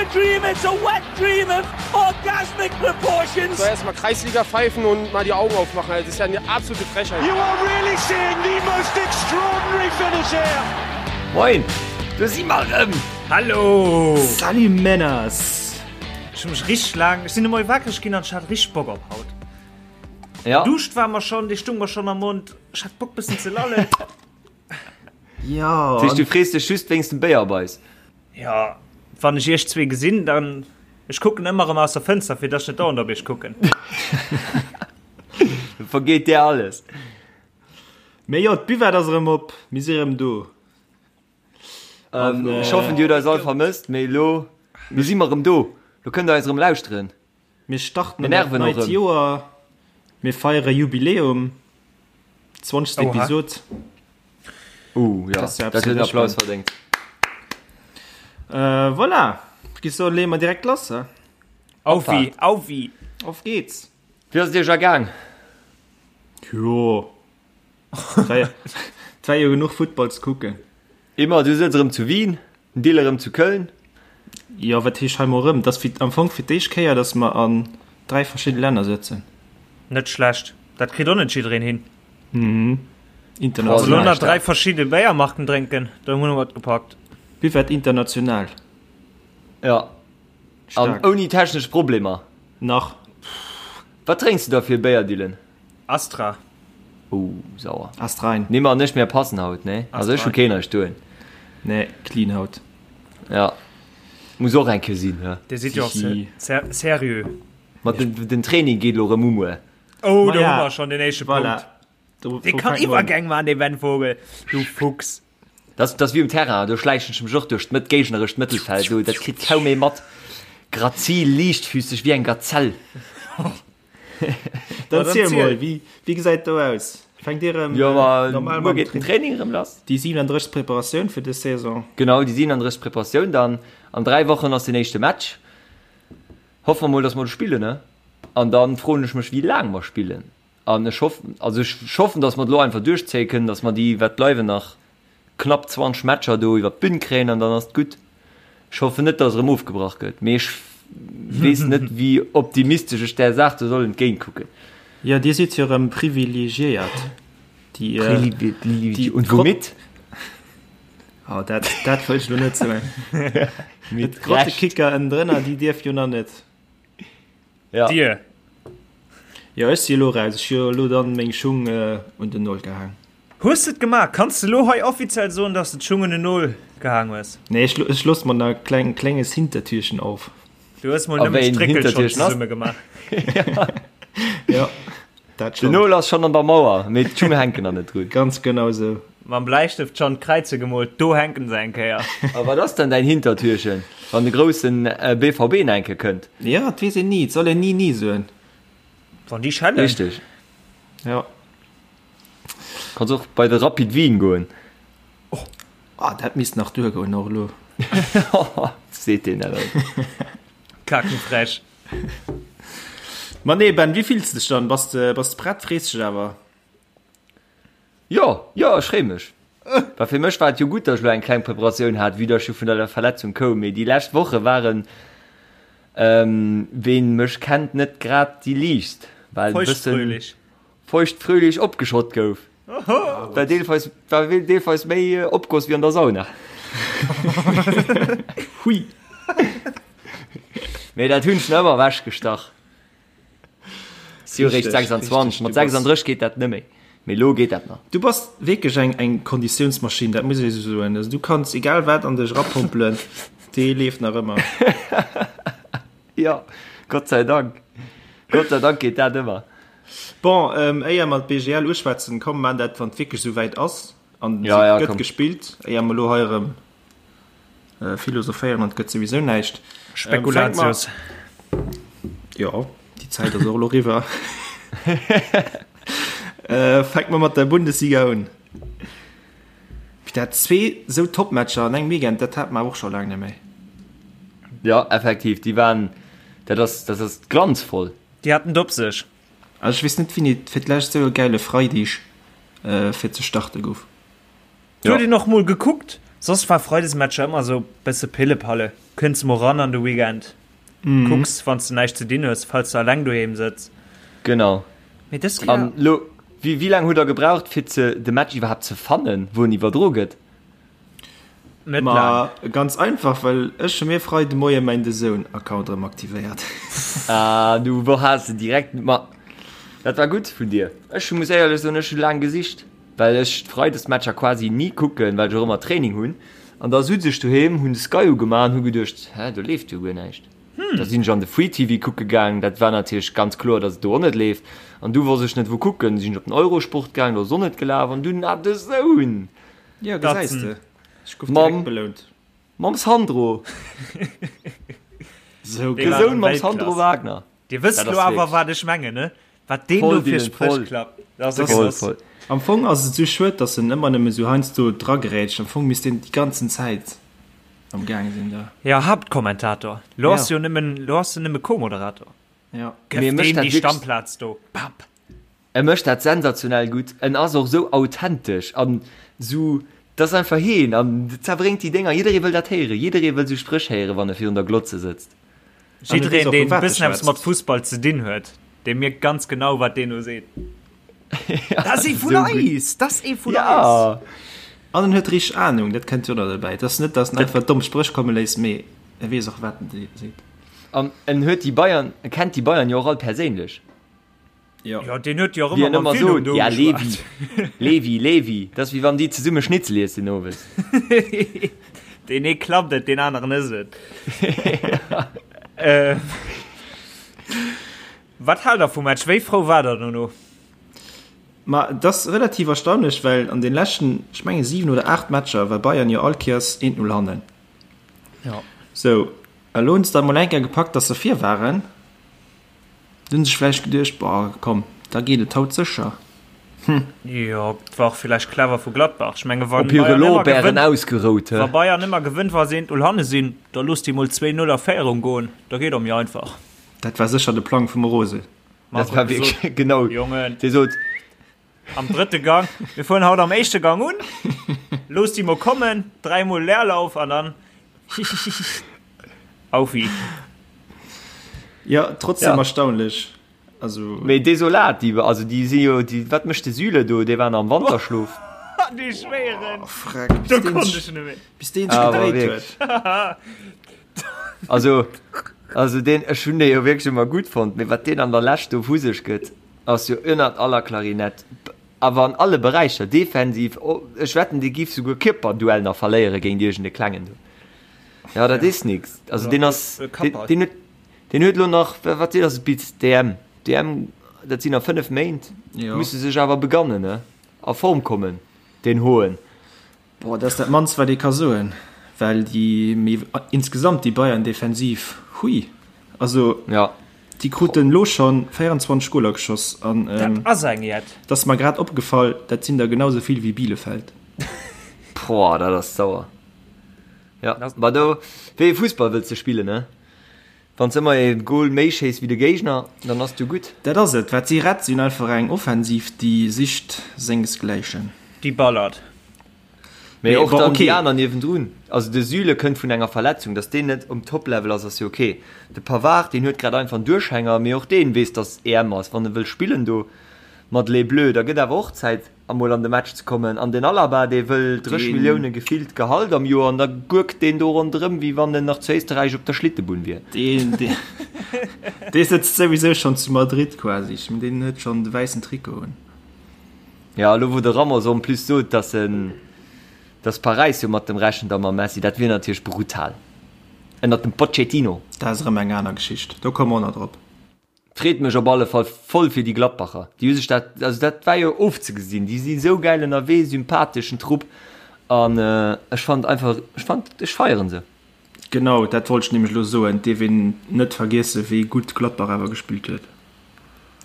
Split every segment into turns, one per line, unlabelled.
a dream, it's a wet dream of orgasmic proportions.
So erstmal Kreisliga pfeifen und mal die Augen aufmachen. Das ist ja eine absolute Frechheit.
You are really seeing the most extraordinary finish here.
Moin, do si mer erëm.
Hallo!
Salut Männers!
Ech hu mech richteg laang, ech sinn emol wakereg ginn an ech hat richteg Bock op haut.
Ja.
Duscht war mer schonn, dee stung mer schonn am Mond. Ech hat Bock bëssen ze lallen.
Ja.
Dat heescht, du frees dech just wéinst dem Béier op eis?
Ja, wann ech iech zwee gesinn, dann, ech kucken ëmmer erëm aus der Fënster, fir dass ech net dauernd op iech kucken.
Da vergeet dir alles.
Mee jo, d'Buvette ass erëm op, mir si erëm do.
An, ech hoffen, dir hutt eis all vermësst, mee elo, elo si mer erëm do. Lo kënnt der eis erëm lauschteren.
Mir starten an dat neit Joer, mir feiere Jubiläum, 20. Episod.
Uh, ja, dat huet en Applaus verdéngt.
Äh, voilà, ech géif soen, leeë mer direkt lass, he?
Aufi, aufi!
Auf geht's!
Wéi ass et iech ergaang?
Jo, et war jo genuch Futtball ze kucken.
Emma, du sëtz erëm zu Wien, den Dil erëm zu Köln.
Jo, wat heescht hei mol erëm? Et ass fir, am Fong fir d'éischt Kéier, datt mer an 3 verschidde Länner sëtzen.
Net schlecht, dat kritt och net jiddereen hin.
Mhm.
Elo
International.
nach 3 verschidde Béiermarken drénken, do hunn mer et gepackt.
Buvette international.
Ja. An ouni technesch Problemer.
Nach.
Wat drénks du da fir e Béier, Dylan?
Astra.
Oh, sauer.
Ast rein.
Nee, ma ech mir passen haut, ne? Also ech hu keen eischt doen.
Nee, clean haut.
Ja. Muss och eng Kéier sinn, he?
Dir sidd jo och seriö.
Mat den, den Training geet lo rëm u muer.
Oh, do hu mer schonn den éischte
Voilà.
Punkt. Dee kann Iwwergäng man, dee Ben Vogel. Du Fuchs.
Dat ass wéi um Terrain, do schläichen ech mech och duerch d'Mëtt, géignerescht Mëttelfeld, do, dat kritt kaum ee mat. Grazil, liichtfüsseg wéi eng Gazell.
Dann ziel mol, wéi, wéi gesäit do aus? Fänkt Dir erëm
Jo, ma
normal
muer
mam
geet den Training erëm lass.
Déi 37. Preparatioun fir dës Saison.
Genau, déi 37. Preparatioun dann. An 3 Wochen ass den éischte Match. Hoffe mer mol, dass mer do spillen, ne? An dann froen ech mech, wéi laang mer spillen. An ech hoffen, also ech hoffen, dass mer et elo einfach duerchzéie kënnen, dass mer déi, wat bleiwen, nach knapp 20 Matcher do iwwer d'Bün kréien an dann ass et gutt. Ech hoffen net, dass erëm ofgebrach gëtt, mee ech weess net, wéi optimistesch ech där Saach do soll entgéint kucken.
Jo, Dir sidd jo erëm privilegiéiert. Déi,
déi Und womit?
Oh, dat, dat wëll ech elo net soen. D'Grottekicker ënnendrënner, déi dierf jo nach net.
Ja.
Dir.
Jo, ech si elo raus. Ech hu jo elo dann meng Schung un den Nol gehaang.
Hues de et gemaach? Kanns de elo hei offiziell soen, dass de d'Schung un den Nol gehaang hues?
Nee, ech, ech loosse mer nach e kleng, klenges Hintertürchen auf.
Du hues mol
A
nëmmen
wéi en
d'Stréckel schonn
Hintertürchen ass?
zesumme gemaach.
Ja, dat
Den
schonn.
Nol ass schonn an der Mauer, mee d'Schung hänken nach net drun.
Ganz genau sou.
Mam Bläistëft schonn d'Kräize gemoolt, do hänken se eng Kéier.
A wat ass dann däin Hintertürchen, wann de groussen BVB nach eng Kéier kënnt?
Ja, et weess een ni. Et soll een ni ni soen.
Wann déi schellen.
Richteg.
Ja.
Kanns och bei de Rapid Wien goen.
Ah, dat misst nach duergoen och elo.
Seet deen dat alt.
Kakenfrech.
Ma nee, Ben, wéi fills de dech dann? Bass de, bass de prett? Frees dech awer?
Jo, jo, ech freeë mech. Well fir mech war et jo gutt, datt ech elo eng kleng Preparatioun hat, vue datt ech jo vun der Verletzung koum. Mee déi lescht Woche waren, ween mech kennt, net grad déi liichtst, well e bëssen
Feuchtfröhlich.
feuchtfröhlich opgeschott gouf. War deelweis, war deelweis méi Opgoss wéi an der Sauna.
Hui.
Mee dat hunn ech nach ëmmer ewechgestach. Si hu réischt 26, mat 36 geet dat net méi, mee elo geet dat nach.
Du bass wierklech eng eng Konditiounsmaschinn, dat muss ech esou soen. Also du kanns egal wat an dech erapompelen, dee leeft nach ëmmer.
Jo, Gott sei Dank, Gott sei Dank geet dat ëmmer.
Bon, éier mer d'BGL uschwätzen, komm mer maachen dat wann et wierklech esou wäit ass an
Ja, ja,
se gëtt
komm.
gespillt, éier mer elo hei erëm Philosophéieren an et gëtt souwisou näischt.
Spekulatius.
Jo, déi Zäit ass och elo eriwwer. Fänke mer mat der Bundesliga un. Dat zwee sou Topmatcher an engem Weekend, dat hat mer awer och scho laang net méi.
Jo, effektiv, déi waren, dat ass, dat ass glanzvoll.
Déi haten et op sech.
Also ech weess net, wéini et fir d'lescht sou e gäile Freideg fir ze starte gouf.
Et huet een och mol gekuckt. Soss war Freidesmatcher ëmmer sou bësse Pillepalle. Kënns mol ran an de Weekend, kucks wann s de näischt ze dinn hues, falls de alleng doheem sëtz.
Genau.
Mee dës Kéier.
An lo, wéi, wéi laang hutt der gebraucht fir ze, de Match iwwerhaapt ze fannen, wou en iwwerdro gëtt?
Net
Ma
laang.
ganz einfach, well ech hu mir Freide Moie mäin DAZN Account erëm aktivéiert.
Ah, du wor has de direkt, ma dat war gutt vun dir. Ech muss éierlech soen, ech hu laang gesicht. Well ech d'Freidesmatcher quasi ni kucken, well ech och ëmmer Training hunn. An da sutz ech doheem, hunn de Sky ugemaach an hu geduecht, hä, do leeft jo guer näischt. Da sinn ech an de Free TV kucke gaang, dat war natierlech ganz kloer, datt et do och net leeft. An du wosst ech net wou kucken, du sinn ech op den Eurosport gaang, do ass och net gelaf. An dunn, ah, DAZN!
Jo, gesäis de, ech gouf direkt belount.
Mam Sandro!
Sou
geil.
DAZN mam Sandro Wagner.
Dir wësst lo awer wat ech mengen, ne? Wat deen do fir Spréch klappt, dat ass e Genoss.
Am Fong ass et sou schued, dass en ëmmer nëmme sou heiansdo dragrätscht. Am Fong misst deen déi ganzen Zäit am Gaang sinn da.
Jo, Haaptkommentator. Lo ass jo nëmmen, lo ass en nëmme Co-Moderator.
Jo.
Gëff deem déi Stammplaz do. Bam!
E mécht dat sensationell gutt, en ass och sou authentesch an sou, dat ass einfach heen an zerbréngt déi Dénger. Jidderee wëll dat héieren, jidderee wëll sou Spréch héieren, wann e virun der Glotze sëtzt.
Jiddereen, deen e bëssen eppes mat Fussball ze dinn huet, dee mierkt ganz genau, wat deen do seet. Dat ass ee vun eis! Dat ass ee vun eis!
An en huet richteg Anung, dat kënnt jo och nach derbäi. Et ass net, datt en einfach domm Spréch komme léisst, mee e weess och, wat en seet.
An en huet déi Bayern, e kennt déi Bayern jo och all perséinlech.
Ja.
Ja, deen huet jo och
Wéi
ëmmer
en
mam
ëmmer
Filou
sot,
do
ja Levi,
geschwat.
Levi, Levi, dat ass wéi wann déi zesumme Schnitzel iessen owes.
Deen ee klappt et, deen aneren ësst et. Äh, Wat haalt der vum Match? Wéi frou war der dono?
Ma et ass relativ erstaunlech, well an den leschten, ech menge 7 oder 8 Matcher war Bayern jo all Kéiers 1-0 hannen.
Ja.
Sou, a lo hunn se da mol eng Kéier gepackt, dass se vir waren. Du hunn sech vläicht geduecht, boah, komm, da geet et haut sécher.
Hm. Jo, et war och villäicht clever vu Gladbach. Ech menge wann
Op hire
Bayern ëmmer
Lorbeeren
gewënnt,
ausgerout,
wa
he?
Bayern ëmmer gewënnt, wa se 1-0 hanne sinn, da looss déi mol 2-0 a Féierung goen, da geet och méi einfach.
Dat war sécher de Plang vum Rose.
Dat
Marco
war
huet gesot,
wierklech, genau,
Jongen,
dee sot,
am drëtte Gang, mir fueren haut am éischte Gang un, looss déi mol kommen, dräimol Leerlauf an dann Aufi.
Jo, trotzdem
Ja.
erstaunlech. Also.
Mee desolat, déi, also déi si jo, déi, wat mécht de Süle do? Dee war nach am Wanterschlof.
Dee Schwéieren!
Oh, freck, bis
Do
deen
konnt
sech,
ech net méi.
bis deen sech
Awer
gedréit
wierklech.
huet.
Also, also deen, ech hunn dee jo wierklech ëmmer gutt fonnt, mee wat deen an der Lescht do vu sech gëtt, ass jo ënnert aller Klarinett. Awer an alle Beräicher, defensiv, ech wetten, dee giff souguer Kierperduell nach verléiere géint iergend e Klengen do. Ja, dat is nix. Also deen ass, deen huet, deen huet elo nach, wat ass et bis d'EM? D'EM, dat sinn nach 5 Méint, musse sech awer begannen, ne? A Form kommen, deen Hoen.
Boah, dat ass dat mannst wat ee ka soen, well déi, mee insgesamt déi Bayern Defensiv, hui, also
ja.
déi kruten elo schonn 24 Goler geschoss an
dat ass eng jett.
Dat ass mer grad opgefall, dat sinn der genau sou vill wéi Bielefeld.
Boah, dat ass sauer. Ja, ma do, wéi ee Fussball wëlls de spillen, ne? Wann s ëmmer ee Goal méi schéiss wéi de Géigner, dann ass du gutt.
Dat ass et, wat si rett. Si hunn einfach eng Offensiv, déi sicht sengesgläichen.
Déi ballert.
Mee
Mee
och
bon,
dann
okay.
déi aner niewendrun. Also de Süle kënnt vun enger Verletzung, datt deen net um Top-Level ass, ass jo ok. De Pavard, deen huet grad einfach en Duerchhänger, mee och deen weess, datt EM ass. Wann e wëll spillen do mat Les Bleus, da gëtt awer och Zäit. Emol an de Match ze kommen. An den Alaba, dee wëll 30 Millioune gefillt Gehalt am Joer an da gurkt deen do ronderëm, wéi wann en nach zu Éisterräich op der Schlittebunn wier.
Deen, dee sëtzt souwisou schonn zu Madrid quasi. Ech mengen, deen huet schonn de wäissen Trikot un.
Jo, elo wou de Ramos en plus sot, dass en, dass Paräis jo mat dem rechent a mam Messi, dat wier natierlech brutal. Ënnert dem Pochettino.
Dat ass erëm eng aner Geschicht, do komme mer och nach drop.
Freet mech op alle Fall voll fir déi Gladbacher. Déi hu sech dat, also dat war jo ofzegesinn. Déi si sou gäil ënnerwee, sympatheschen Trupp an ech fand einfach, ech fand, ech feieren se.
Genau dat wollt ech nämlech elo soen. Et dierf een net vergiessen, wéi gutt Gladbach awer gespillt huet.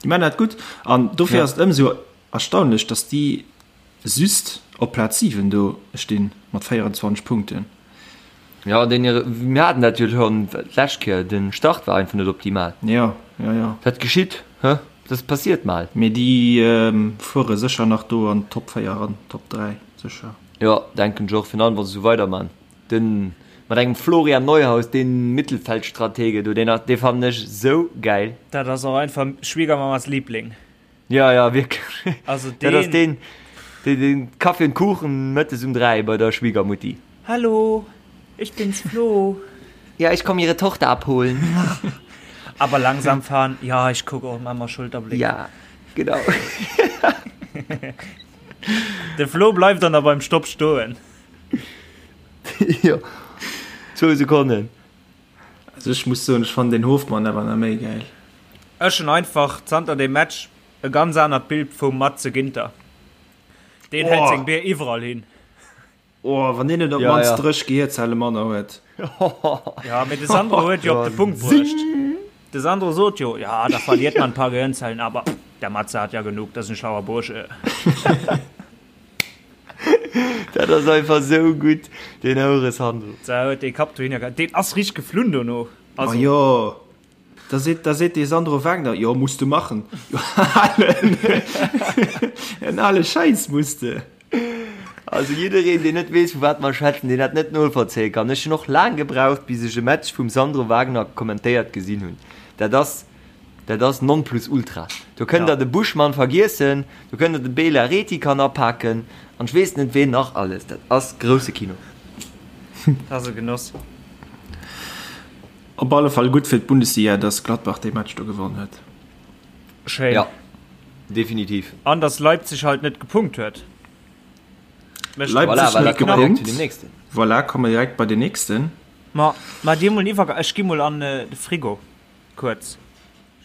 Déi maachen dat gutt an dofir ass et ëmsou erstaunlech, datt déi just op Plaz 7 do stinn mat 24 Punkten.
Ja, den hire, mir haten dat jo schonn d'lescht Kéier, den Start war einfach net optimal.
Ja, ja, ja.
Dat geschitt, hä? Dat passiert mal.
Mee déi fuere sécher nach do an d'Top 4 eran, Top 3 sécher.
Jo, denken ech och, virun allem wa se esou weiderman. Den mat engem Florian Neuhaus, deen Mittelfeldstratege do, deen dee fannen ech sou gäil.
Dat ass och einfach Schwiegermamas Liebling.
Ja, ja, wierklech. Also deen. Dat ass deen, deen den Kaffee und Kuchen mëttes um 3 bei der Schwiegermutti.
Hallo, ich bin's Flo.
Ja, ich komm ihre Tochter abholen.
Aber langsam fahren. Ja, ich guck och mal Schulterblick.
Ja, genau.
De Flo bleift dann da beim Stopp stoen.
Jo, zwou Sekonnen.
Also ech muss soen, ech fannen den Hofmann awer nach méi gäil.
Ech hunn einfach zanter deem Match e ganz anert Bild vum Matze Ginter. Deen hält seng Bier iwwerall hin.
Oh, wann deen net op d'mannst 30 Gehierzelle manner huet.
Ja, mee de Sandro huet jo op de Punkt bruecht. De Sandro sot jo, ja, da verliert man ein paar Gehirnzellen, aber der Matze hat ja genug, das ist ein schlauer Bursche.
Dat ass einfach sou gutt, deen Houre Sandro.
Da huet dee Kapp dohinner gehat. Deen ass richteg geflunn dono.
Also. Ma jo, da seet, da seet dee Sandro Wagner, jo, muss de machen. Jo, alen, en ale Schäiss muss de.
Also jiddereen, deen net weess, vu wat mer schwätzen, deen dat net novollzéie kann. Ech hunn och laang gebraucht, bis ech e Match vum Sandro Wagner kommentéiert gesinn hunn. Dat ass. Dat ass Nonplusultra. Do kënnt der de Buschmann vergiessen, do kënnt der de Bela Rethy kann apaken an ech weess net ween nach alles. Dat ass grousse Kino.
Dat ass e Genoss.
Op alle Fall gutt fir d'Bundesliga, dass Gladbach dee Match do gewonn huet.
Schéin.
Ja, definitiv.
An dass Leipzig halt net gepunkt huet.
Leipzig voilà, net gepunkt. Voilà, komme mer direkt bei den nächsten.
Ma, ma dir mol en Iwwergang. Ech gi mol an de Frigo. Kuerz.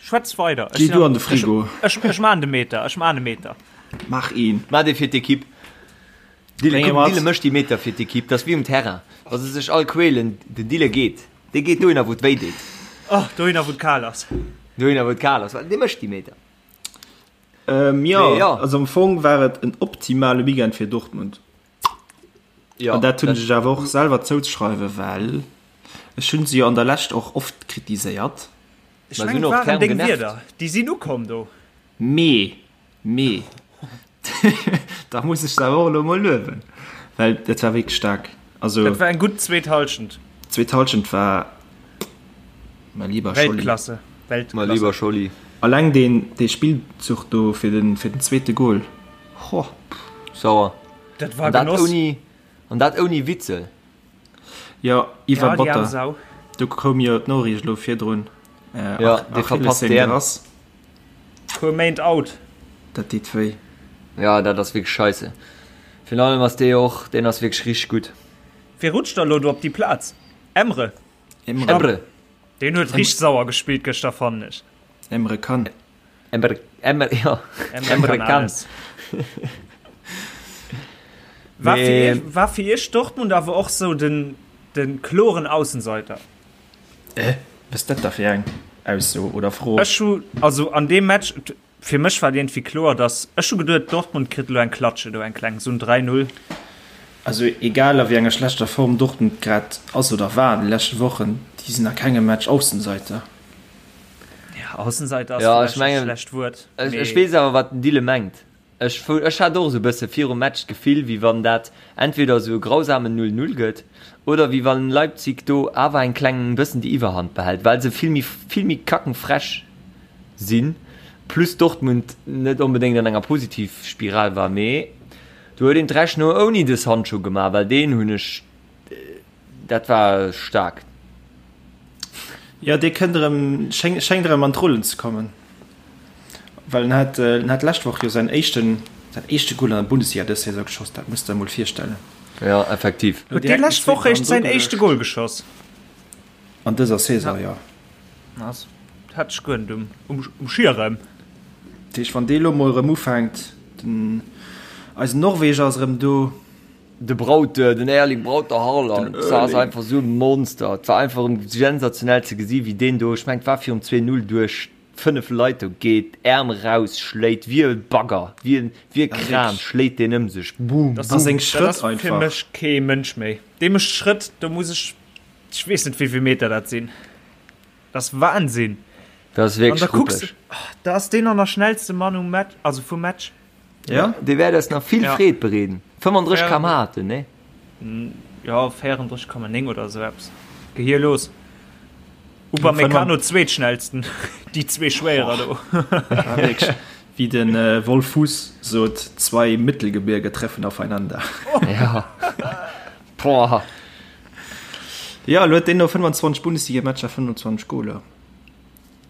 Schwätz weider.
Geh du an de Frigo.
Ech, ech, ech maan de Meter, ech maan e Meter.
Mach een.
Maach dee fir d'Ekipp. Dille, komm, Dille mécht déi Meter fir d'Ekipp. Dat ass wéi um Terrain, wa se sech all quälen, den Dille geet. Dee geet dohinner, wou et wéi deet.
Oh, dohinner, wou et kal ass.
Dohinner, wou et kal ass. Dee mécht déi Meter.
Ähm, jo, jo, also am Fong war et en optimale Weekend fir Dortmund.
Ja,
An dat hunn ech awer och selwer zouzeschreiwen, well ech hunn se jo an der Lescht och oft kritiséiert.
Ech mengen, et waren deng Wierder, déi sinn ukomm do.
Mee, mee, da muss ech se awer och elo emol luewen, well dat war wierklech staark. Also.
Dat war eng gutt zweet Hallschent.
D'zweet Hallschent war, mein lieber Scholli.
Weltklasse,
Weltklasse. Mein lieber Scholli.
Alleng deen, dee Spillzuch do fir den, fir den zweete Gol, ho.
Sauer.
Dat war
An dat
Genoss.
ouni, an dat ouni Witzel.
Jo, iwwer
Ja, déi arm
Botter.
Sau.
Do koum jo d'Noriicht elo virdrun. Äh,
Ja, dee verpasst
Achillessehn
d'EM.
gerass.
Puer Méint out.
Dat deet wéi.
Ja, dat ass wierklech scheisse. Virun allem ass dee och, deen ass wierklech richteg gutt.
Wie rutscht da lo do op déi Plaz? Emre.
Emre.
Emre.
Deen huet richteg sauer gespillt gëschter, fannen ech.
Emre Can.
Emre, Emre, ja.
Emre,
Emre
kann
Can.
alles. War fir
Nee.
iech, war fir iech Dortmund awer och sou den, den kloren Aussenseiter?
Äh, was dat da fir eng Ausso oder Fro?
Ech hu, also an deem Match, fir mech war et iergendwéi kloer, dass, ech hu geduet, Dortmund kritt elo eng Klatsche do, eng kleng, sou en 3, 0.
Also egal a wéi enger schlechter Form Dortmund grad ass oder war an de leschte Wochen, déi sinn a kengem Match Aussenseiter.
Ja, Aussenseiter ass
Ja, ech
vläicht e
mengen,
schlecht Wuert,
ech, ech
mee.
weess awer, wat den Dille mengt. Ech, ech hat och esou e bësse virum Match d'Gefill, wéi wann dat entweder esou e grausamen 0, 0 gëtt oder wéi wann Leipzig do awer eng kleng bëssen déi Iwwerhand behält, well se vill méi, vill méi kackenfrech sinn, plus Dortmund net onbedéngt an enger Positivspiral war. Mee do huet een d'Rechnung ouni de Sancho gemaach, well deen hunn ech Dat war staark.
Jo, dee kënnt erëm, schéngt erëm an d'Rullen ze kommen, well en hat, en hat d'lescht Woch jo säin éischten, säin éischte Goal an der Bundesliga dës Saison geschoss, dat muss de der emol virstellen.
Jo, effektiv.
Huet dee lescht Woch réischt säin éischte Goal geschoss?
An dëser Saison, jo.
Dat hat ech guer net um Schierem.
Dat heescht, wann dee lo mol erëm ufänkt, den, eisen Norweger ass erëm do.
De Braut, den Erling Braut Haaland, dat ass einfach esou e Monster. Et war einfach erëm sensationell ze gesi wéi deen do, ech mengen et war virum 2, 0, duerch 5 Leit do geet, Äerm raus schléit wéi e Bagger, wéi e Kran schléit deen ëm sech, boom,
Dat
boom.
Seng
ass
Schrëtt
fir
einfach.
mech kee Mënsch méi. Dee mécht Schrëtt, do muss ech, ech weess net wéivill Meter dat sinn. Dat ass Wahnsinn.
Dat ass
An da
wierklech
kucks,
ruppeg.
da ass deen an der schnellste Mann um Match, also vum Match.
Ja.
Dee wäert eis nach vill
Ja.
Freed bereeden. 35 km/h hat en, nee?
Jo, 34,9 oder esou eppes. Gehierlos. Upamecano zweetschnellsten, déi zwee Schwéierer do.
Ja, wierklech. Wéi de Wolf Fuss sot, Zwei Mittelgebirge treffen aufeinander.
Ja. Boah.
Ja, elo huet deen no 25 Bundesligamatcher 25 Goler.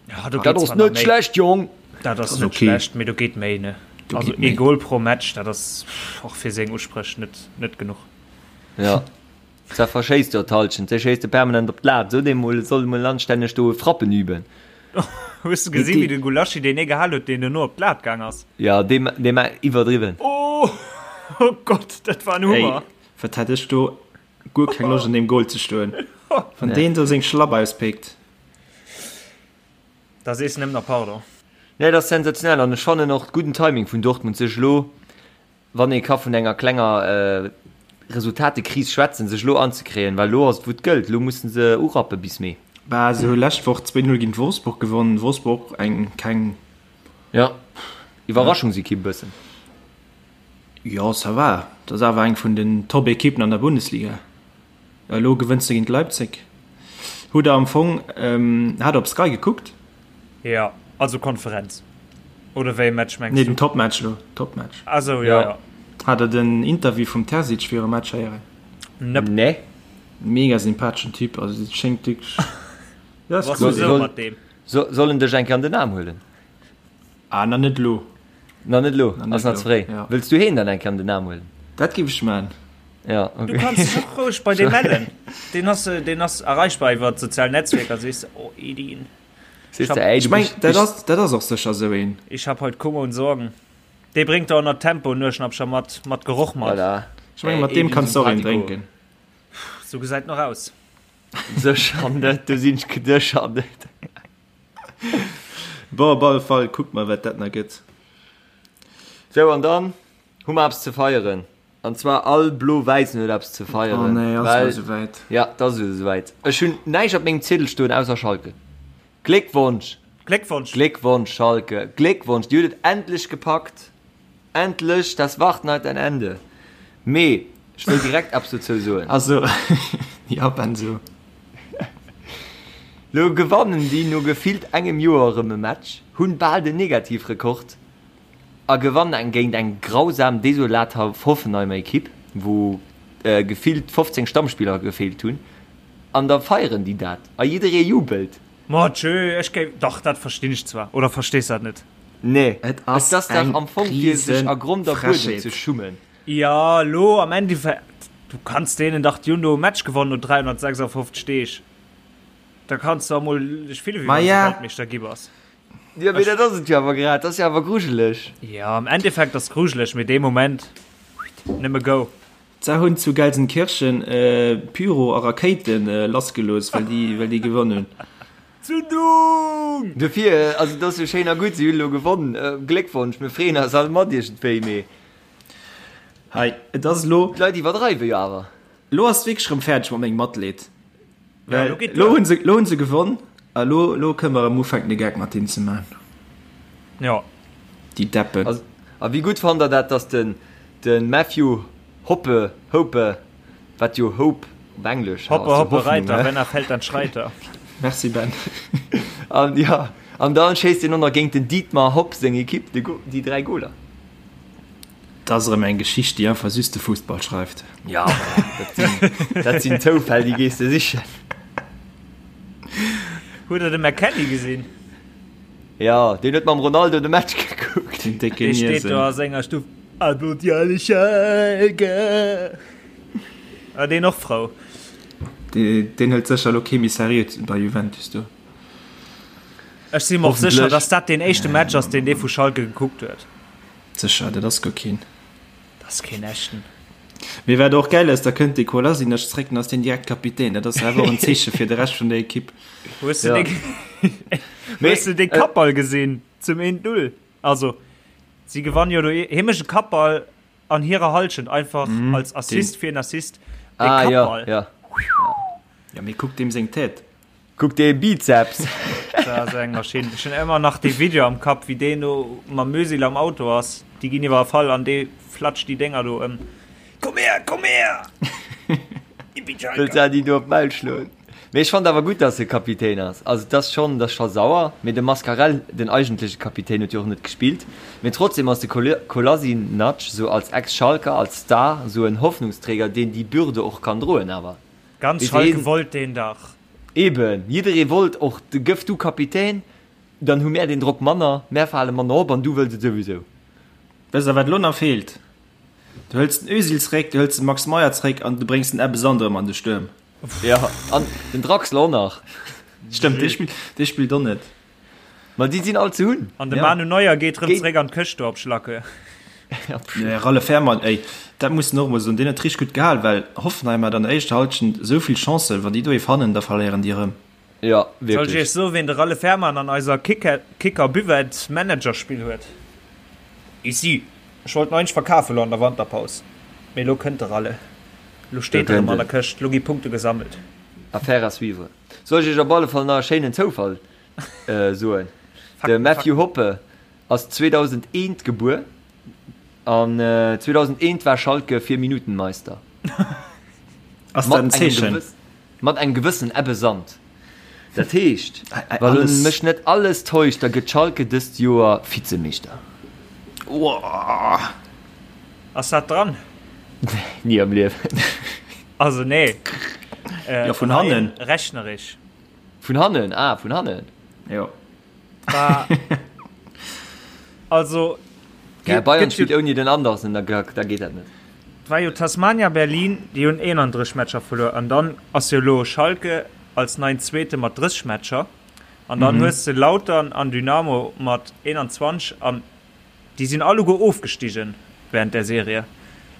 Ja, do
Dat
geet
ass
zwar nach
net
méi.
schlecht, Jong.
Dat ass
ass
net
okay.
schlecht, mee do geet méi, ne?
Do
Also
geet méi.
ee Goal pro Match, dat ass och fir seng Uspréch net, net genuch.
Ja. Zwar verschéisst jo d'Halschent, se schéisst e permanent op d'Lat, sot ee mol, e soll emol anstänneg do Frappen üben.
Hues de gesinn, wéi de Gulaschi deen ee gehal huet, deen duerno op d'Lat gaang ass?
Ja, dee, dee war iwwerdriwwen.
Oh, oh Gott, dat war en Hummer.
Ey, wat hätt ech do guer keng Loscht an deem Goal ze stoen, wann deen do seng Schlapp auspéckt.
Da sees de nëmmen nach Pardon.
Nee, dat ass sensationell an ech fannen och gudden Timing vun Dortmund, sech elo wann ee ka vun enger klenger Resultatekris schwätzen, sech elo anzekréien, well elo ass et wou et gëllt, elo musse se urappe bis Mee.
Bah, se hu lescht Woch 2-0 géint Wolfsburg gewonnen, Wolfsburg eng keng.
Jo, Iwwerraschungsekipp e bëssen.
Jo, ça va, dat ass awer eng vun den Top-Ekippen an der Bundesliga. Elo gewënns de géint Leipzig. Hutt der am Fong, hat der op Sky gekuckt?
Jo, also Konferenz. Oder wéi e Match mengs du?
Nee, den Topmatch elo, Topmatch.
Ah sou, jo, jo.
Hat der den Interview vum Terzic virum Match héieren?
Nope.
Nee.
Mega sympatheschen Typ, also et schéngt wierklech,
jo, ass cool. Soll, mat deem.
Soll en dech eng Kéier an den Aarm huelen?
Ah, na net elo.
Na net elo, ass nach ze fréi. Wëlls du heen dann eng Kéier an den Aarm huelen?
Dat géif ech man.
Ja, okay.
Du kanns dech och roueg bei deem mellen. Deen ass, deen ass erreichbar iwwer d'sozial Netzwierker. Sees de, oh Edin.
Sees de, ey,
Ech
du
meng,
bist,
dat ass, dat ass och sécher esou een.
Ich hab heut Kummer und Sorgen. Dee bréngt der och nach Tempo Nueschnappcher mat, mat Geroch mat.
Voilà.
Ech meng, mat deem kanns de och een drénken.
Sou gesäit en och aus.
Sécher net, do sinn ech sécher net.
Bon, op alle Fall, kucke mer, wat dat nach gëtt.
Sou, an dann hu mer eppes ze feieren. An zwar all Blo-Wäissen huet eppes ze feieren.
Oh nee, ass et elo souwäit?
Ja, et ass elo souwäit. Ech hunn näischt op mengem Ziedel stoen ausser Schalke. Gléckwonsch!
Gléckwonsch!
Gléckwonsch, Schalke! Gléckwonsch! Dir hutt et endlech gepackt! Endlech! Das Warten hat ein Ende. Mee ech wëll direkt eppes dozou soen.
Also, ja, Ben, so.
Lo gewannen déi no gefillt engem Joer erëm e Match, hunn bal den Negativrekord a gewannen eng géint eng grausam, desolat Hoffenheimer Ekipp, wou gefillt 15 Stammspiller gefeelt hunn, an da feieren déi dat a jidderee jubelt.
Ma tjö, ech géif, dach dat verstinn ech zwar, oder verstees dat net?
Nee,
Et ass
et ass dach
eng
am Fong fir sech a Grond a Buedem ze
Riesenfrechheet.
schummen.
Jo, lo am Endeffekt, du kanns deenen dach, déi hunn do e Match gewonnen no 356 Deeg, da kanns du emol dech fillen, wéi wann s de Weltmeeschter gi bass.
Jo, mee dat ass et jo awer grad, dat ass jo awer grujeleg.
Jo, am Endeffekt ass grujeleg, mee dee Moment, nëmme go.
Se hunn zu Gelsenkirchen Pyro a Rakéite lassgelooss, well déi, well déi gewonnen hunn.
Zündung!
Dofir, also et ass jo schéin a gutt, si hunn elo gewonnen, Gléckwonsch, mir freeën eis all mat iergendwéi, mee.
Hei, et ass elo.
D'Leit iwwerdreiwe jo awer.
Elo ass et wierklech erëm fäerdeg mat mengem Matleed. Well elo hunn se, elo hunn se gewonn a elo, elo kënne mer erëm ufänken de Geck mat hinnen ze man.
Jo.
Déi Deppen.
A wéi gutt fannt der dat, dass den, de Matthew Hoppe, Hope, wat jo Hope op Englesch
Hoppe, hoppe Reiter, wenn er fällt, dann schreit er.
Merci Ben.
An jo, an dann schéisst hien och nach géint den Dietmar Hopp seng Ekipp de, déi 3 Goler.
Dat ass erëm eng Geschicht, déi einfach just de Fussball schreift.
Ja, dat sinn, dat sinn Zoufäll, déi gees de sichen.
Hutt der de McKennie gesinn?
Ja, deen huet mam Ronaldo de Match gekuckt.
Den décke
Dee steet do
Niesen.
a senger Stuff, Applaudit alle Schalke! War deen och frou?
Deen hëlt sécher elo kee méi seriö bei Juventus do.
Ech si mer och sécher, dass dat deen éischte Match ass, deen dee vu Schalke gekuckt huet.
Sécher, dat ass guer keen.
Dat ass keen echten.
Mee wat och gäil ass, da kënnt de Kolasinac zréck, dann ass deen direkt Kapitän. Dat ass awer och en Zeeche fir de Rescht vun der Ekipp.
Hues de dee, hues de dee Kappball gesinn zum 1-0? Also, si gewannen jo do, hie mécht e Kappball an hirer Hallschent, einfach als Assist fir en Assist. Dee
Ah, ja,
Kappball.
ja.
Ja, mee kuck deem seng Tête.
Kuck dee Bizeps!
Dat ass eng Maschinn. Ech hunn ëmmer nach dee Video am Kapp, wéi deen do mam Özil am Auto ass. Déi ginn iwwerfall an dee flatscht déi Dénger do ëm. Komm her, komm her!
Wëllt se déi do op d'Maul schloen. Mee ech fannt awer gutt, dass e Kapitän ass. Also et ass schonn, et ass scho sauer. Mee de Mascarell, den eigentleche Kapitän, huet jo och net gespillt. Mee trotzdem ass de Kolasinac sou als Ex-Schalker, als Star, sou en Hoffnungsträger, deen déi Bürde och kann droen awer.
Ganz Schalke wollt deen dach.
Eben, jidderee wollt och, gëff du Kapitän, dann hu mär deen Drock manner, mär fale manner op an du wëlls et souwisou.
Wësst der wat elo nach feelt? Du hëls den Özil zréck, du hëls den Max Meyer zréck an du bréngs den Ebbe Sand erëm an de Stuerm.
Jo, an den Draxler och nach.
Stëmmt, dee spillt, dee spillt och net.
Ma déi sinn all ze hunn.
An de Manu Neuer geet rëm zréck an d'Këscht do op Schlacke.
Nee, Ralle Fährmann, ey, dat muss en och emol soen, deen huet richteg gutt gehal, well Hoffenheim hat an der éischter Halschent esou vill Chancen, wann déi do ee fannen, da verléieren déi erëm.
Jo, wierklech.
Soll ech iech soen, ween de Ralle Fährmann an eiser Kicker Buvette Managerspill huet? Ici! Ech wollt en eigentlech verkafen elo an der Wanterpaus, mee elo kënnt de Ralle. Elo steet e rëm an der Këscht, elo gi Punkte gesammelt.
Affaire à suivre. Soll ech iech op alle Fall nach e schéinen Zoufall soen? De Matthew Hoppe ass 2001 gebuer an 2001 war Schalke vier Minuten Meister.
Ass dat en Zeechen?
Mat engem gewëssen Ebbe Sand. Dat heescht, wa mech net alles täuscht, da gëtt Schalke dëst Joer Vizemeeschter.
Ass dat dran?
Ni am Liewen.
Also nee.
Jo, vun hannen.
Rechnerich.
Vun hannen, ah, vun hannen.
Jo.
Also.
Ja, Bayern spillt ouni den Andersen, da geet dat net.
Et war jo Tasmania Berlin, déi hunn 31 Matcher verluer an dann ass jo elo Schalke als neien Zweete mat 30 Matcher an dann hues de Lautern an Dynamo mat 21 an déi sinn alleguer ofgestigen während der Serie.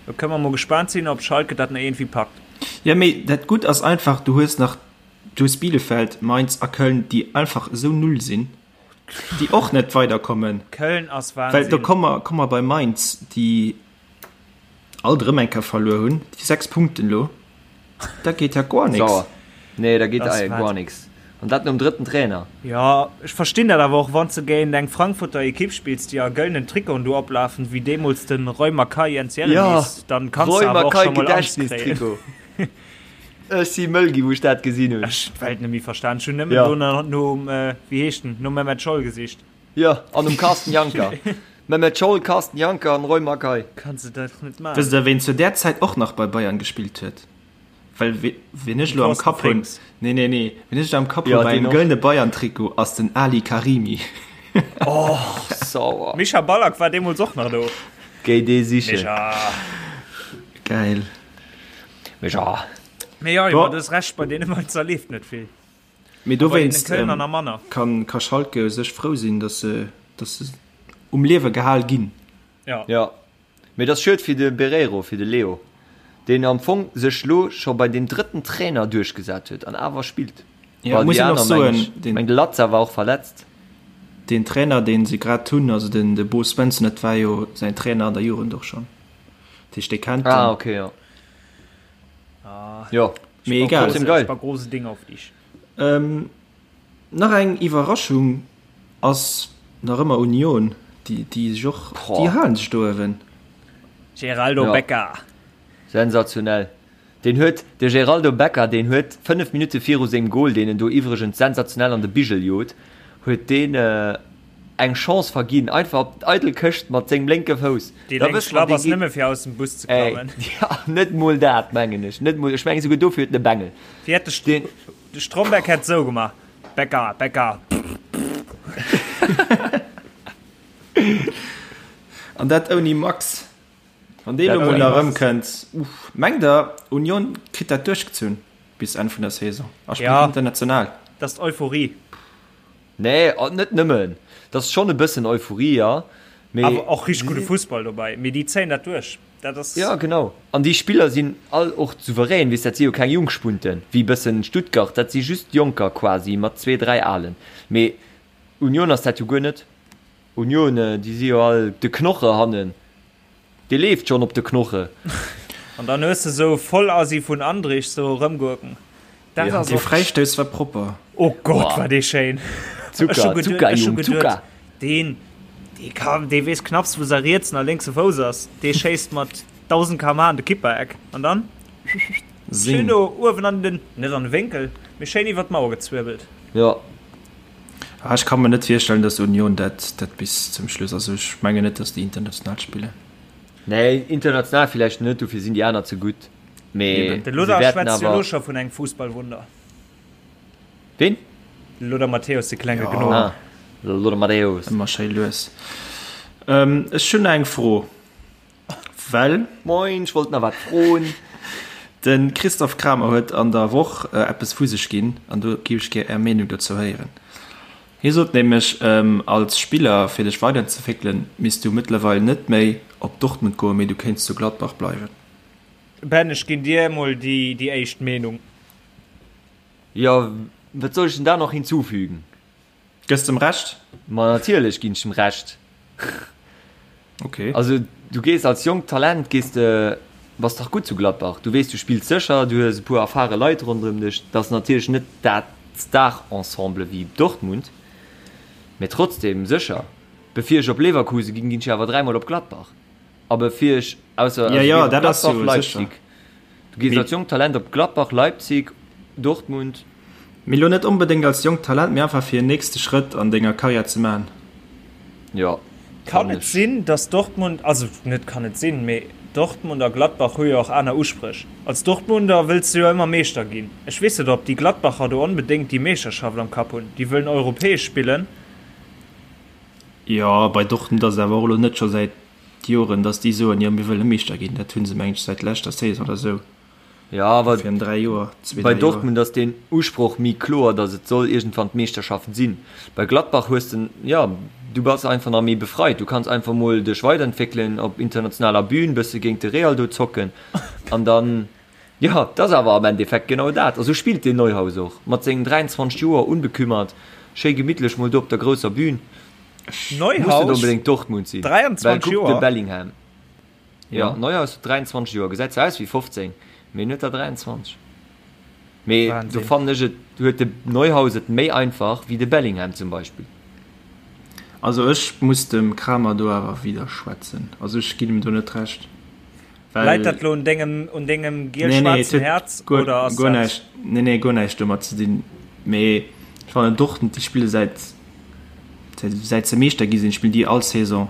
Do kënne mer mol gespaant sinn, ob Schalke dat nach iergendwéi packt.
Jo, mee dat Gutt ass einfach, du hues nach, du hues Bielefeld, Mainz a Köln, déi einfach esou null sinn, déi och net weiderkommen.
Köln ass Wahnsinn.
Well do komme mer, komme mer bei Mainz, déi Alt erëm eng Kéier verluer hunn, déi 6 Punkten elo, dat geet ja guer nix.
Sauer. Nee, da geet guer nix. An dat nom drëtten Trainer.
Jo, ech verstinn dat awer och, wann s de géint eng Frankfurter Ekipp spills, déi a gëllenen Trikoten do oplafen, wéi deemools de Roy Makaay, Jens Jeremies, dann kanns de awer och scho mol Angscht kréien.
Ech si mëll ginn, wou ech dat gesinn hunn.
Ech hunn d'Welt net méi verstan. Ech hunn nëmmen do nach nom, wéi heescht en, nom Mehmet Scholl gesicht.
Jo, an um Carsten Janker. Mehmet Scholl, Carsten Janker an Roy Makaay.
Kanns de dat net maachen.
Wësst der ween zu där Zäit och nach bei Bayern gespillt huet? Well ween ech elo am Kapp hunn, nee nee nee, ween ech elo am Kapp hunn bei engem gëllene Bayern Trikot ass den Ali Karimi.
Oh sauer.
Micha Ballack war deemools och nach do.
Géi dee sichen.
Micha.
Geil.
Micha.
Mee jo, du hues Recht, bei deene Mainzer leeft net vill.
Mee dowéinst kann ka Schalke u sech frou sinn, datt se datt se um Liewe gehal ginn.
Ja.
Ja. Mee et ass schued fir de Bereiro, fir de Leo, deen am Fong sech lo scho bei deem drëtten Trainer duerchgesat huet an awer spillt.
Ja,
Well
muss
déi
een och
aner,
soen,
meng ech,
den
meng de Latza war och verletzt.
deen Trainer, deen se grad hunn, also den de Bo Svensson, dat war jo säin Trainer an der Jugend och schonn. Dat heescht, dee kennt
Ah,
en.
okay, jo. Jo.
Mee egal.
Trotzdem geil.
Große Ding auf dich.
Ähm, nach eng Iwwerraschung ass nach ëmmer Union, déi, déi sech och, déi halen sech do uewen.
Geraldo
Ja.
Becker.
Sensationell. Deen huet, de Geraldo Becker, deen huet 5 Minutte viru sengem Goal, deen en do iwwregens sensationell an de Bigel jot, huet deen eng Chance verginn, einfach op d'eidel Këscht mat sengem lénke Fouss.
Déi
Da
lénk
wësst mer,
Schlapp
dee
ass
geet.
nëmme fir aus dem Bus ze
Ey,
klammen.
ja, net mol dat, mengen ech. Net mol, ech mengen souguer dofir huet en e Bengel.
Wéi hätt de,
Deen.
de Stromberg hätt sou gemaach, Becker, Becker.
An dat ouni Max. Wann dee
Dat
lo mol
ouni
nach
Max.
erëmkënnt, uff. Mengt der, Union kritt dat duerchgezunn bis Enn vun der Saison a spillt
Ja.
international?
Dat ass d'Euphorie.
Nee, net nëmmen. Dat ass schonn e bëssen Euphorie, jo, mee.
Awer och richteg gudde Fussball dobäi. Mee déi zéien dat duerch. Dat ass.
Jo, genau. An déi Spiller sinn all och souverän, weess, dat si jo keng Jungspunten, wéi e bëssen Stuttgart, dat si just Jonker quasi mat zwee, dräi Alen. Mee Union ass dat jo guer net. Union, déi si jo all de Knoche hannen. Dee leeft schonn op de Knoche.
An dann hues de sou Vollasi vun Andrich sou erëmgurken. Dat
Ja,
ass
dee
och.
Fräistouss war propper.
Oh Gott,
Boah.
war dee schéin. Ech hu
Zucker,
geduet,
Zucker,
ech hu
Jung,
geduet,
Zucker.
deen, dee ka, dee weess knapps, wou säi rietsen a lénkse Fouss ass. Dee schéisst mat. 1000 km/h an de Kippereck an dann schéin do uewen an den, net an de Wénkel, mee schéin iwwer d'Mauer gezwirbelt.
Jo.
Ah, ech ka mer net virstellen, dass Union dat, dat bis zum Schluss, also ech mengen net, dass déi international spillen.
Nee, international villäicht net, dofir sinn déi aner ze gutt, mee
De Lothar schwätzt jo elo scho vun engem Fussballwunder.
Ween?
De Lothar Matthäus, de klenge Gnom.
Ah, de Lothar Matthäus.
Ëmmer schéi lues. Ech hunn eng Fro, well.
Moin, ech wollt nach wat froen.
De Christophe Kramer huet an der Woch eppes vu sech ginn an do géif ech gär Är Meenung dozou héieren. Hie sot nämlech, als Spiller, fir dech weiderzeentwéckelen, misst du mëttlerweil net méi op Dortmund goen, mee du kéints zu Gladbach bleiwen.
Ben, ech ginn dir emol déi éischt Meenung.
Jo, wat soll ech denn da noch hinzufügen?
Gëss dem Recht?
Ma natierlech ginn ech dem Recht.
Okay.
Also du gees als jonkt Talent gees de, bass dach gutt zu Gladbach. Du weess, du spills sécher, du hues e puer erfare Leit ronderëm dech. Dat ass natierlech net dat Star-Ensemble wéi Dortmund, mee trotzdem sécher. Bevir ech op Leverkusen ginn, ginn ech awer dräimol op Gladbach. A bevir ech, ausser,
Ja,
also
ja,
gees op
dat ass
Gladbach,
jo sécher.
Leipzig. Du gees als jonkt Talent op Gladbach, Leipzig, Dortmund.
Mee lo net onbedéngt als jonkt Talent, mee einfach fir en nächste Schrëtt an denger Karriär ze maachen.
Jo,
Kann
fannen
et
ech.
sinn, dass Dortmund, also net kann et sinn, mee Dortmund a Gladbach hu jo och aner Uspréch. Als Dortmunder wëlls de jo ëmmer Meeschter ginn. Ech weess net, ob déi Gladbacher do onbedéngt déi Meeschterschaft am Kapp hunn. Déi wëllen europäesch spillen.
Jo, bei Dortmund ass et awer och elo net scho säit Joren, dass déi soen, jo mir wëlle Meeschter ginn. Dat hu se mengen ech säit leschter Saison oder esou.
Jo, awer
Virun 3 Joer, zwee,
bei
dräi Joer.
Dortmund ass deen Usproch méi kloer, dass et soll iergendwann d'Meeschterschaft sinn. Bei Gladbach hues de, jo, du bass einfach nach méi befreit. Du kanns einfach mol dech weiderentwéckelen op internationaler Bühn, bësse géint de Real do zocken an dann, jo, dat ass awer am Endeffekt genau dat. A sou spillt deen Neuhaus och, mat sengen 23 Joer, unbekümmert, schéi gemittlech mol do op der grousser Bühn. Muss net
Neuhaus,
onbedéngt Dortmund sinn, well
23
kuck de
Joer.
Bellingham. Jo,
Ja.
Neuhaus huet 23 Joer, gesäit zwar aus wéi 15, mee en huet der 23. Mee do
Wahnsinn.
fannen ech et huet de Neuhaus et méi einfach wéi de Bellingham zum Beispill.
Also ech muss dem Kramer do awer widderschwätzen. Also ech ginn em do net Recht.
Läit
Well
dat lo un dengem, un dengem
nee, nee, et
giel-schwaarzen
huet
Häerz
guer,
oder ass
guer
dat.
näischt, nee, nee, guer näischt domat ze dinn. Mee ech fannen Dortmund, déi spille säit, säit, säit se Meeschter gi sinn, spillen déi all Saison,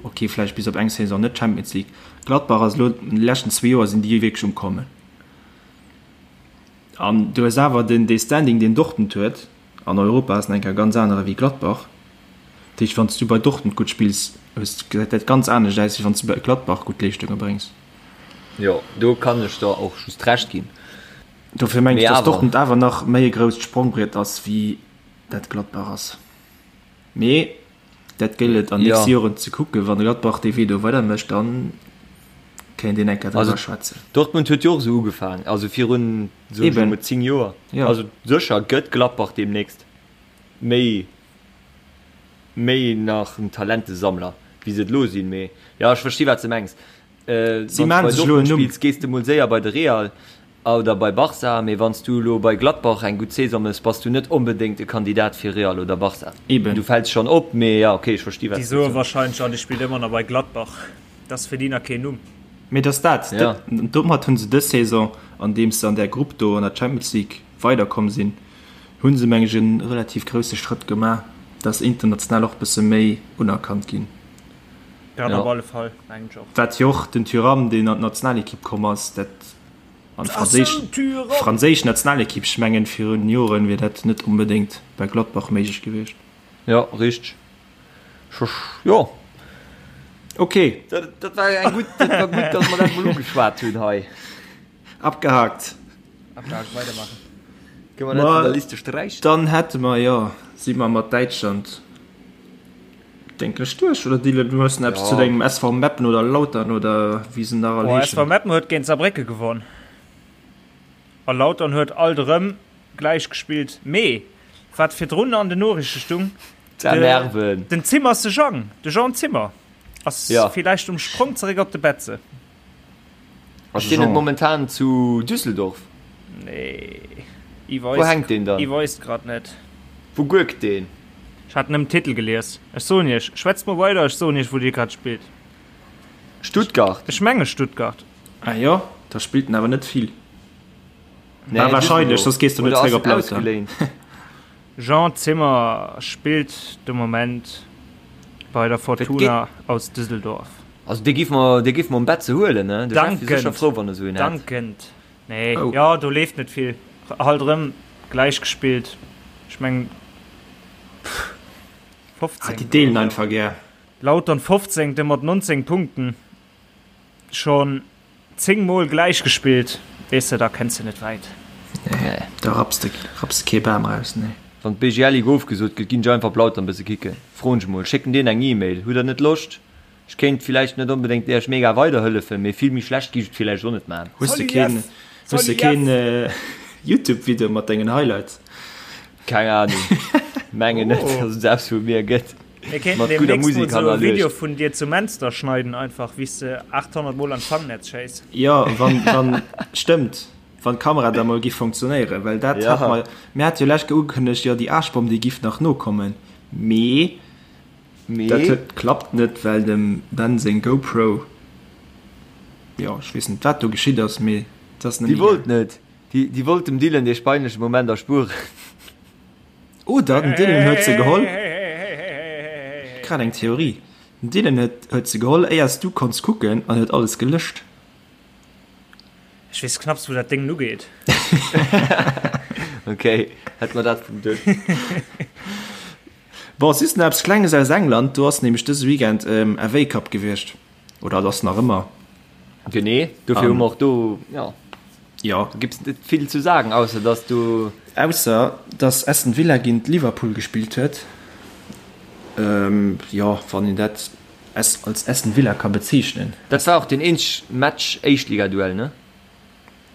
ok, vläicht bis op eng Saison net Champions League. Gladbach ass elo, an de leschten zwee Joer sinn déi wierklech um Kommen. An du hues awer den, dee Standing, deen Dortmund huet an Europa, ass nach eng Kéier e ganz anere wéi Gladbach. Dat heescht, wann s du bei Dortmund gutt spills, hues, gesäit dat ganz anescht aus, wéi wann s du bei Gladbach gutt Leeschtunge bréngs.
Jo, do kann ech der och just Recht ginn.
Dofir mengen
Mee
ech, dass
awer.
Dortmund awer nach méi e grousst Sprongbriet ass, wéi dat Gladbach ass. Mee dat gëllt et an nächste
Jo.
Joren ze kucken. Wann Gladbach dee Wee do weidermécht, da kéint een eng Kéier
Also
driwwer schwätzen.
Dortmund huet jo och esou ugefaangen, also virun, soen ech
Eben.
emol, 10 Joer.
Jo.
Also sécher gëtt Gladbach deemnächst méi méi nach en Talentesammler wéi se et elo sinn, mee jo ech versti wat s de mengs.
Si
Wann s
maachen
bei
sech elo en
Dortmund
Numm.
spills gees de mol séier bei de Real oder bei Barca, mee wann s du elo bei Gladbach eng gutt Saison mëss, bass du net onbedéngt e Kandidat fir Real oder Barca.
Eben.
Du fäls schonn op, mee jo ok ech versti wat
Déi
s du
soe
soos.
wahrscheinlech, ah dee spillt ëmmer nach bei Gladbach, dat ass fir déi nach keen Numm.
Mee et ass dat,
Ja.
domat hu se dës Saison, andeems se an där Grupp do an der Champions League weiderkomm sinn, Hunn se meng ech en relativ grousse Schrëtt gemaach, dass se international och bësse méi unerkannt ginn.
Dat
Ja.
op alle Fall, mengen ech och.
Wat jo och den Thuram, deen an d'Nationalekipp komm ass, dat an d'franséisch
Thuram!
franséisch Nationalekipp, ech mengen virun Joren wier dat net onbedéngt bei Gladbach méiglech gewiescht.
Jo, richteg. Jo.
Ok.
Dat, dat war eng gutt, dat war gutt, dass mer dat mol ugeschwat hunn hei.
Abgehakt.
Abgehakt, weidermachen.
Kënne mer dat vun der Liste sträichen?
Dann hätte mer, jo, si mer mat Däitschland, denken ech, duerch. Oder Dylan, du hues nach eppes zu dengem SV Meppen oder Lautern oder wéi se nach all heeschen?
SV Meppen huet géint Saarbrécke gewonn a Lautern huet alt erëm gläich gespillt. Mee wat virdrun an den Noriichte stung, den Zimmer ass de Jang, de Jean Zimmer ass villäicht um Sprong zeréck op de Betze.
Ass deen net momentan zu Düsseldorf?
Nee.
Wou hänkt deen dann?
I weis grad net.
Wou gurkt deen?
Ech hat nëmmen Titel gelies. Ech soen iech, schwätzt mol weider, ech soen iech wou dee grad spillt.
Stuttgart.
Ech menge Stuttgart.
Ah jo, da spillt en awer net vill. Nee, ah, wahrscheinlech, soss gees du net zréck op Lautern.
Jean Zimmer spillt de Moment bei der Fortuna aus Düsseldorf.
Also dee giff mer, dee giff mer um Bett ze huelen, ne? De Jeff wier sécher frou, wann e sou een hätt.
Dankend. Nee, oh. Jo, do leeft net vill. Halt erëm gläich gespillt. Ech mengen
15. Ah, déi deelen einfach gär.
Lautern 15. mat 19 Punkten. Schon 10 mol gläich gespillt, weess de, da kenns de net wäit.
Nee, da rapps de, rapps de kee Bam raus, nee.
Wann d'BGL Ligue ofgesot gëtt, ginn ech einfach op Lautern bësse kicken. Froen ech mol, schécken deen eng Email, Hutt der net Loscht? Ech kéint villäicht net onbedéngt iech mega weiderhëllefen, mee vill méi schlecht giff ech et villäicht och net man.
Hues de keen, hues de keen Youtube Video mat dengen Highlights?
Keng Ahnung, mengen net, dass et eppes vu mir gëtt.
Mir kéinten deemnächst mol sou e Video vun dir zu Menster schneiden einfach wéi s de 800 mol an d'Fangnetz schéiss.
Jo, wann, wann, stëmmt, wann d'Kamera da mol giff funktionéieren, well dat hat mer, mir hate jo lech ugekënnegt, jo déi Aarschbomm déi giff nach nokommen, mee dat huet, klappt net, well dem Ben seng GoPro, jo ech weess net wat do geschitt ass, mee et ass net
méi. Déi wollt net, déi wollt dem Dylan dee peinleche Moment erspueren.
Oder den Dylan huet se geholl. Grad eng Theorie. Den Dylan huet huet se geholl éiers du konns kucken an huet alles gelëscht.
Ech weess knapps wou dat Déngen ugeet.
Ok, hätt mer dat vum Dësch.
Bon, just nach eppes Klenges aus England, do ass nämlech dëse Weekend FA Cup gewiescht. Oder et ass nach ëmmer.
Genee, dofir hu mer och do, jo.
Jo.
Do gibt's net vill zu sagen, ausser dass du.
Ausser dass Aston Villa géint Liverpool gespillt huet. Jo, wann een dat als Aston Villa ka bezeechnen.
Dat war och deen eenzeg Match, Éischtligaduell, ne?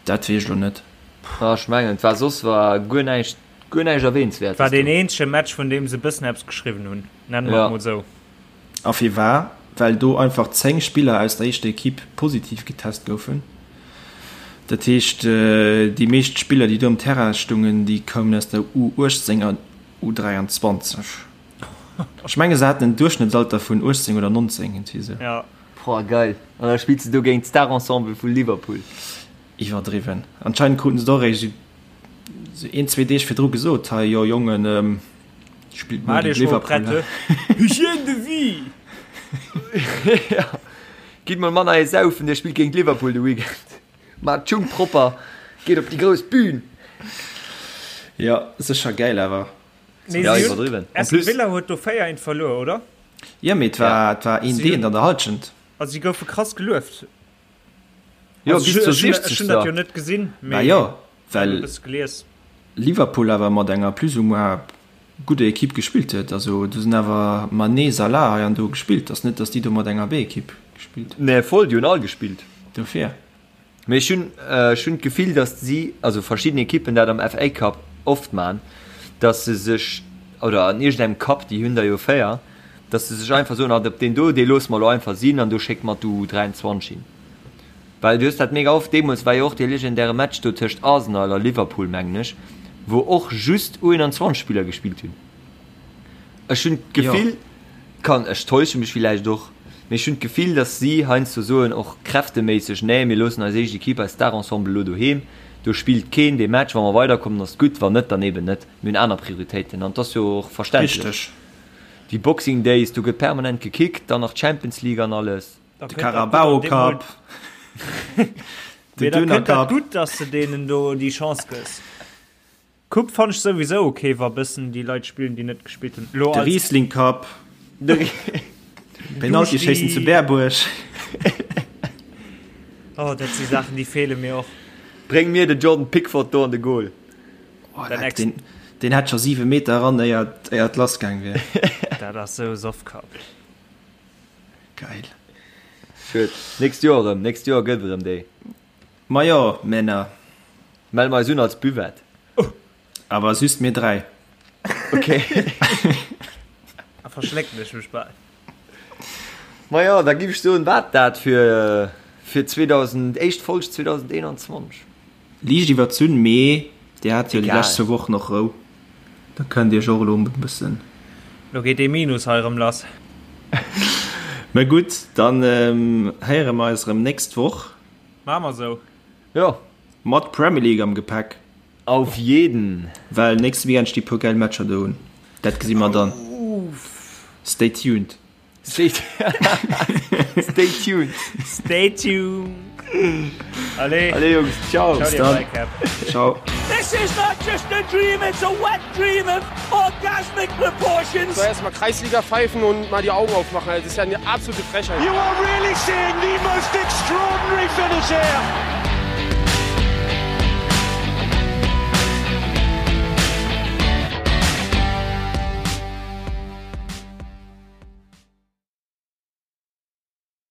Dat weess ech lo net.
Ah, ech mengen, et war soss war guer näischt, guer näischt Erwähnswertes
War deen eenzege Match, vun deem se e bëssen eppes geschriwwen hunn, nenne mer et mol esou.
A firwar? Well do einfach 10 Spiller aus der éischter Equipe positiv getest goufen. Dat heescht, déi meescht Spiller, déi do um Terrain stungen, déi koumen aus der U18 an U23. Ech menge se haten en Duerchschnëttsalter vun 18 oder 19, iergendwéi esou.
Ja. Boah, geil. An da spills de do géint d'Star-Ensemble vu Liverpool.
Iwwerdriwwen. Anscheinend kruten se et och eréischt esou een, zwee Deeg virdru gesot, hei, jo Jongen, Spillt muer géint Liverpool.
Hygiène de vie!
Ja. Gitt mol manner ee saufen, dir spillt géint Liverpool de Weekend. Maacht d'Schung propper, geet op déi grouss Bühn.
Ja, sécher gäil awer.
Nee, ja, iwwerdriwwen. Aston Villa huet do 4 1 verluer, oder?
Ja, mee et war, et war een Deen an der Halschent.
Also si goufe krass gelueft.
Jo, bis zur 60.
Ech hunn dat jo net gesinn,
mee jo, well Liverpool awer mat enger plus ou moins gudder Equipe gespillt huet. Also do sinn awer Mané, Salah hei an do gespillt. Ass net, datt déi do mat enger B-Equipe gespillt
hunn. Nee, voll, déi hunn all gespillt.
Dofir.
Mee ech hunn, ech hunn d'Gefill, datt si, also verschidden Equippen dat am FA Cup oft man, datt se sech, oder an iergendengem Cup, déi hunn der jo 4, datt se sech einfach soen, ah, op deen do, dee loosse mer elo einfach sinn an do schécke mer d'U23 hin. Well du hues dat mega oft, deemools war jo och dee legendäre Match do tëscht Arsenal a Liverpool, mengen ech, wou och just U21 Spiller gespillt hunn. Ech hunn d'Gefill, kann, ech täusche mech villäicht och, mee ech hunn d'Gefill, datt si heiansdo soen, och kräfteméisseg, nee, mir loossen eis éischt Equipe, eist Star-Ensemble elo doheem, do spillt keen dee Match, wa mer weiderkommen ass et gutt, wann net, dann eben net, mir hunn aner Prioritéiten an et ass jo och verständlech.
Richteg.
Déi Boxing Days, do gëtt permanent gekickt, dann nach d'Champions League an alles.
De Carabao Cup,
de Döner Cup. Gutt, dass de deenen do déi Chance gëss. Coupe fannt ech souwisou ok, wa bëssen déi Leit spillen, déi net gespillt hunn.
De Riesling Cup, Penalty schéissen zu Berbuerg.
Oh, dat si Saachen, déi feele mir och.
Bréng mir de Jordan Pickford do an de Goal.
Oh, deen, deen hätt scho 7 Meter eran, éier et lass gaang wier.
Dat ass sou Soffkapp.
Geil.
Schued. Nächst Joer erëm. Nächst Joer gëtt erëm déi.
Majo, Männer.
Melle mer eis un als Buvette.
Awer just mir 3.
Ok.
Da verschlécken ech mech bal.
Majo, da giff ech soen, war dat fir fir 2000, éischt Folg 2021.
Liicht iwwerzunn, mee dir hat jo déi lescht zwou Wochen och Rou, da kënnt dir iech och elo e bëssen.
Lo geet dee Minus hei erëm lass.
Mä gutt, dann héiere mer eis erëm nächst Woch.
Maache mer esou.
Jo.
Mat Premier League am Gepäck.
Auf jeden!
Well nächste Weekend sti puer geil Matcher do un. Dat gesi mer dann. Stay tuned.
Stay Stay tuned.
Stay tuned. Allez.
Allez Jungs, ciao.
Ciao,
Bis dann. Ciao.
This is not just a dream, it's a wet dream of orgasmic proportions.
So erstmal Kreisliga pfeifen und mal die Augen aufmachen. Das ist ja eine absolute Frechheit.
You are really seeing the most extraordinary finish here.